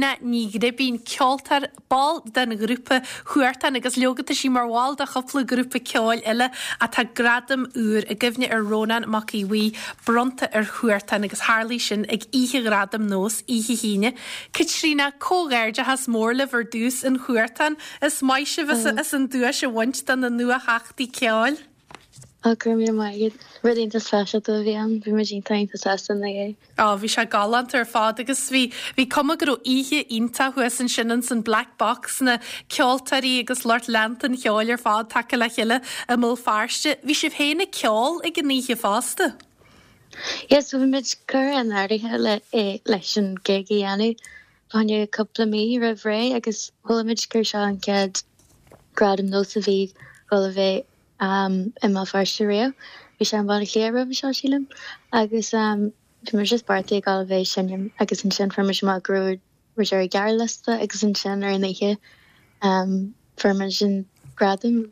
Caitríona Ní Ghribín, ceoltóir, ball den ghrúpa Huartan agus leoga tá sí mar bhall de chúpla grúpa ceoil eile ach tá gradam úr i gcuimhne ar Rónán Mac Aodha Bhuí bronnta ar Huartan agus tharlaigh sin ag Oíche Ghradaim Nós oíche hAoine. Caitríona, comhghairdeachas mór libh ar dtús in Huartan. Is maith sibh as an duais a bhaint do na nuatheachtaí ceoil. Ó, go raibh míle maith agat. Rud iontach speisialta a bhí ann. Bhí muid iontach iontach sásta ina dhiaidh. Á, bhí sé galánta ar fad agus bhí, bhí cuma go raibh oíche iontach thuas ansin ins an Black Box, na ceoltóirí agus lucht leanta an cheoil ar fad tagtha le chéile i mBéal Feirste. Bhí sibh féin ag ceol ag an oíche fosta? Yeah, so bhí muid curtha in áirithe le, eh, leis an gig a dhéanamh fá choinne cúpla mí roimh ré agus chuala muid gur seo an chéad gradam nós a bhí dhul a bheith i mBéal Feirste riamh. Bhí sé i mBaile Átha Cliath roimhe seo, sílim. Agus bhí muid just beartaithe ag dul a bheith ag seinm agus ansin fuair muid amach go raibh muid ar an ghearrliosta agus ansin ar an oíche fuair muid an gradam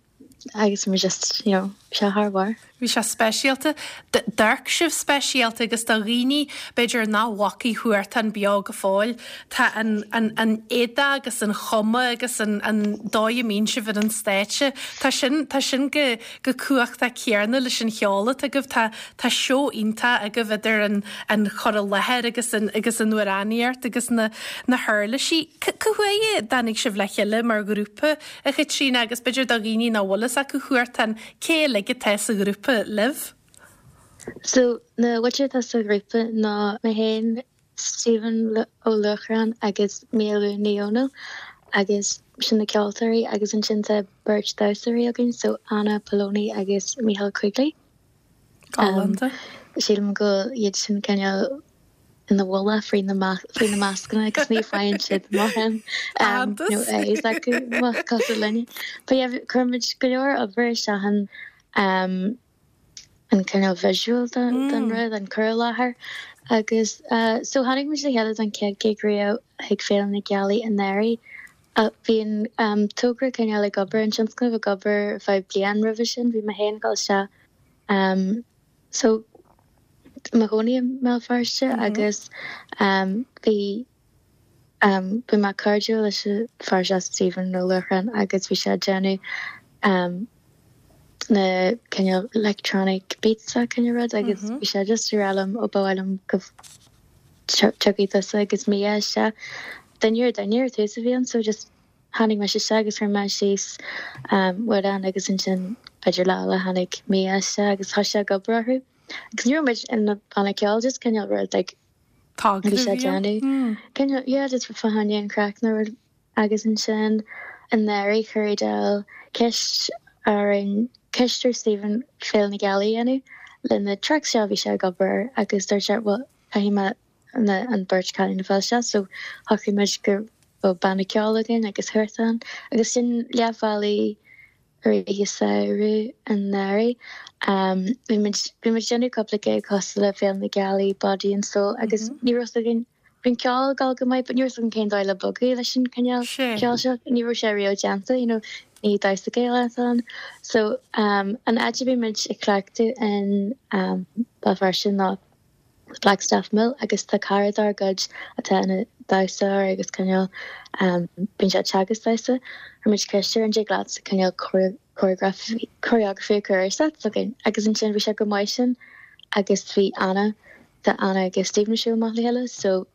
agus bhí muid just, you know, bhí sé thar barr. Bhí sé speisialta. D'amharc sibh speisialta agus do dhaoine, b'fhéidir, nach bhfacaidh Huartan beo go fóill, tá an, an, an éadach agus an chuma agus an, an dóigh a mbíonn sibh ar an stáitse, tá sin, tá sin go, go cumhachtach céanna leis an cheol atá agaibh. Tá, tá seó iontach agaibh idir an, an chur i láthair agus an, agus an amhránaíocht agus na, na huirlisí. Cá huair a dtáinig sibh le chéile mar ghrúpa, a Chaitríona, agus b'fhéidir do dhaoine nach bhfuil fhios acu Huartan, Cé uilig atá sa ghrúpa libh? So, na muintir atá sa ghrúpa ná mé féin, Stephen Ó Luachráin agus Mia Lou Ní Dhomhnaill agus sin na ceoltóirí agus ansin tá beirt damhsóirí againn, so Anna Poloni agus Micheál Quigley. Galánta. Sílim go bhfuil iad sin cineál ina bhfolach faoi na mascanna agus ní faigheann siad mórán nó a fhios acu cosúil linne. But yeah, chuir muid go leor obair isteach in an cineál visual den rud, an cur i láthair agus so tháinig muid le chéile don chéad gig riamh ag Féile na Gealaí anuraidh. Bhí an togra cineál ag obair, an tionscnamh ag obair ar feadh bliain roimhe sin, bhí mé féin ag dul isteach So, i mo chónaí i mBéal Feirste agus bhí bhí mé cairdiúil leis an fear seo Stephen Ó Luachráin agus bhí sé ag déanamh na cineál electronic beats a cineál rud agus bhí sé just ag rá liom ó ba mhaith liom go dtiocfaidh tusa agus Mia isteach. Duine ar duine ar tús a bhí ann so just Tháinig mise isteach agus chuir mé síos amhrán agus ansin b'fhéidir lá eile tháinig Mia isteach agus thosaigh sé ag obair orthu. Agus ní raibh muid ina banna ceoil, just cineál rud like bhí sé ag déanamh. Cineál, yeah, just fá choinne an chraic nó rud. Agus ansin anuraidh chuir Edel ceist orainn, ceist ar Stephen Féile na Gealaí a dhéanamh le na tracks seo a bhí sé ag obair air agus dúirt sé well caithfidh mé na an beirt cailín a fháil isteach so shocraigh muid go raibh banna ceoil againn agus Huartan agus sin leath bhealaigh i rith an samhradh anuraidh. Bhí muid bhí muid déanamh cúpla gig cosúil le Féile na Gealaí, Body and Soul agus ní raibh fhios againn bhí an ceol ag dul go maith but ní raibh fhios againn cén dóigh le bogadh leis an cineál ceoil seo. Ní raibh sé riamh déanta you know ní damhsa Gaelach atá ann. So an áit a bhí muid ag cleachtadh in Béal Feirste ná Blackstaff Mill agus tá cara dár gcuid atá ina dhamhsóir agus cineál bíonn sé ag teagasc damhsa. Chuir muid ceist air an dtig leat cineál choreography choreography a chur ar set s'againn agus ansin bhí sé go maith sin agus bhí Anna tá Anna agus Stephen ag siúl amach le chéile so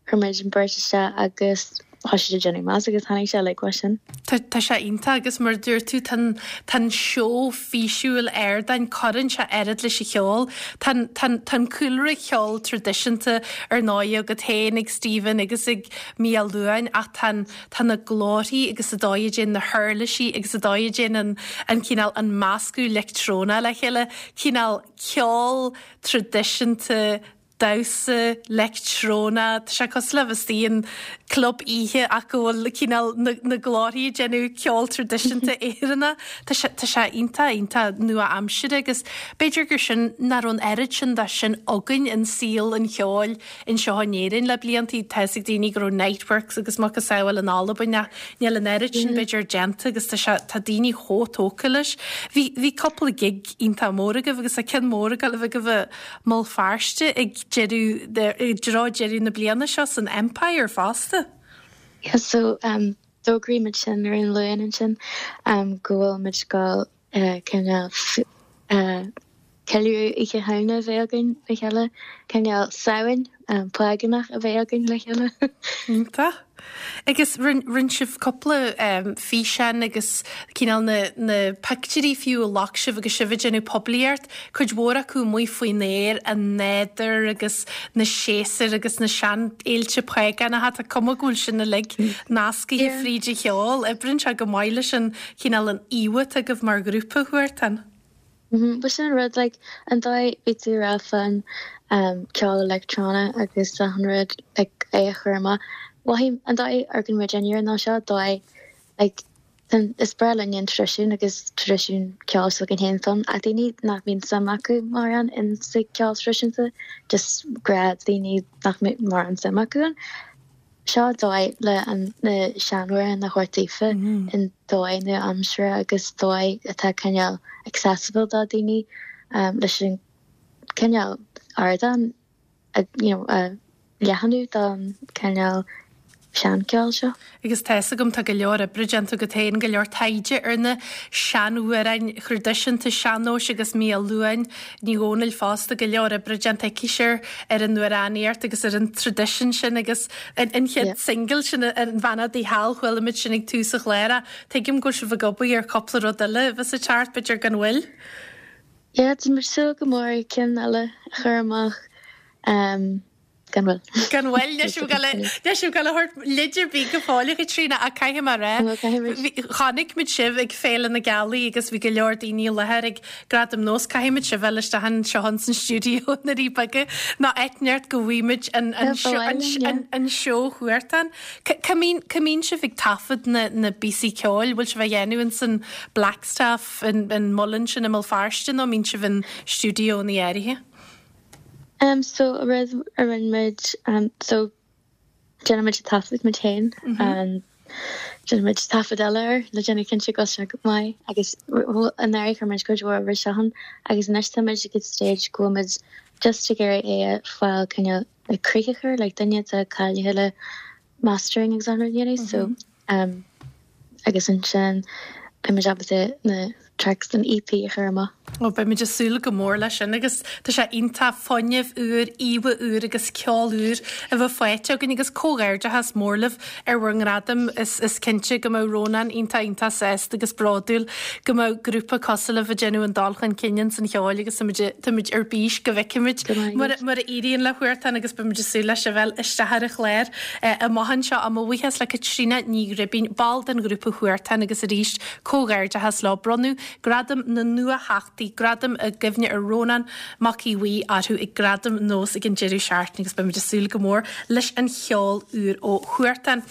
Chuir muid an bheirt isteach agus thosaigh siad ag déanamh mess agus tháinig sé uilig uaidh sin. Tá, tá sé iontach agus mar a dúirt tú, tá an, tá an seó físiúil ardáin, cuireann sé oiread leis an cheol. Tá an, tá an, tá an cúlra ceoil traidisiúnta ar ndóigh agat féin, ag Stephen agus ag Mia Luain ach tá an, tá na glórthaí agus an dóigh a dtéann na huirlisí agus an dóigh a dtéann an, an cineál, an meascadh leictreonach le chéile, cineál ceol traidisiúnta, damhsa leictreonach, tá sé cosúil le bheith istigh in club oíche ach go bhfuil cineál na, na glórthaí ag déanamh ceol traidisiúnta Éireannach. Tá sé, tá sé iontach, iontach nua-aimseartha agus b'fhéidir gur sin nach raibh an oiread sin de sin againn in saol an cheoil anseo in Éirinn le bliantaí. Tá fhios ag daoine go raibh Niteworks agus macasamhail in Albain ach níl an oiread sin b'fhéidir déanta agus tá sé, tá daoine chomh tógtha leis. Bhí, bhí cúpla gig iontach mór agaibh agus tá ceann mór ag dul a bheith agaibh i mBéal Feirste ag deireadh, i dtreo deireadh na bliana seo san Empire fosta. Yeah so um d'fhógraigh muid sin ar an Luan ansin um go bhfuil muid ag gabháil eh cineál eh ceiliúradh Oíche Shamhna a bheith againn le chéile, cineál Samhain págánach a bheith againn le chéile. Iontach. Agus rinne sibh cúpla físeán agus cineál na na pictiúirí fiú a ghlac sibh agus sibh ag déanamh poiblíocht, cuid mhór acu amuigh faoin aer, an nádúr agus na séasúir agus na seanfhéilte págánacha, tá cuma go bhfuil sin uilig nascaithe fríd an cheol. Oibríonn sé go maith leis an chineál an íomha atá agaibh mar ghrúpa, Huartan. Bhuel sin an rud, like, an dóigh bhí tú ag rá fán ceol leictreonach agus achan rud, like, é a chur amach. Mhothaigh, an dóigh a amharcann muid air ná seo dóigh, like, is breá linn an traidisiún agus traidisiún ceoil s'againn féin ann ach daoine nach mbíonn suim acu mórán in sa ceol traidisiúnta, just gnáthdhaoine nach mbíonn mórán suim acu ann. Seo dóigh le na seanamhráin a thabhairt daofa in dóigh nua-aimseartha agus dóigh atá cineál accessible do daoine leis an cineál ardán a you know a leathnú don cineál seancheol seo. Agus tá fhios agam tá go leor oibre déanta agat féin, go leor taighde ar na seanamhráin thraidisiúnta sean-nóis agus Mia Luain Ní Dhomhnaill fosta, go leor oibre déanta aici ar an amhránaíocht agus ar an traidisiún sin agus an chéad singil sin an Bheannacht Dé Thall, chuala muid sin ag tús an chláir. Tuigim go bhfuil sibh ag obair ar chúpla rud eile a bheas ag teacht, b'fhéidir gan mhoill. Yeah, tá muid ag súil go mór ceann eile a chur amach. Gan mhoill. Gan mhoill, níl sibh ag níl sibh ag gabháil a thabhairt leid ar bith go fóill, a Chaitríona, ach caithfidh mé a rá, chonaic muid sibh ag Féile na Gealaí agus bhí go leor daoine i láthair ag Gradaim Nós, caithfidh muid sibh a fháil isteach anseo ins an stiúideo i nDoirí Beaga nó áit inteacht go bhfaighidh muid an an seó Huartan. Cá mbíonn sibh ag taifead na na bpíosaí ceoil? Bhfuil sibh á dhéanamh ins an Blackstaff, an muileann sin i mBéal Feirste nó mbíonn sibh in stiúideoanna áirithe? Um so an rud a rinne muid um so déanann muid taifead muid féin um déanann muid taifead eile air le déanamh cinnte go bhfuil sé go maith agus anuraidh chuir muid cuid mhór oibre isteach ann agus anois tá muid ag an stage go bhfuil muid just ag iarraidh é a fáil cineál le críoch a chur like duine atá cáilithe le mastering agus an rud a dhéanamh so um agus ansin beidh muid ábalta na tracks den EP a chur amach. Ó, beidh muid ag súil go mór leis sin agus tá sé iontach fuinneamh úr, íomha úr agus ceol úr a bheith faighte againn agus comhghairdeachas mór libh ar bhur ngradam. Is is cinnte go mbeadh Rónán iontach iontach sásta agus bródúil go mbeadh grúpa cosúil libh ag déanamh an dul chun cinn ins an cheol agus táimid táimid ar bís go bhfeicfimid mar mar a éiríonn le Huartan agus beimid ag súil le sibh a fháil isteach ar an chlár amach anseo. Mo bhuíochas le Caitríona Ní Ghribín, ball den ghrúpa Huartan agus arís comhghairdeachas leo. Bronnadh Gradam na Nuatheachtaí, gradam i gcuimhne ar Rónán Mac Aodha Bhuí orthu ag Gradaim Nós ag an deireadh seachtaine agus beimid ag súil go mór leis an cheol úr ó Huartan.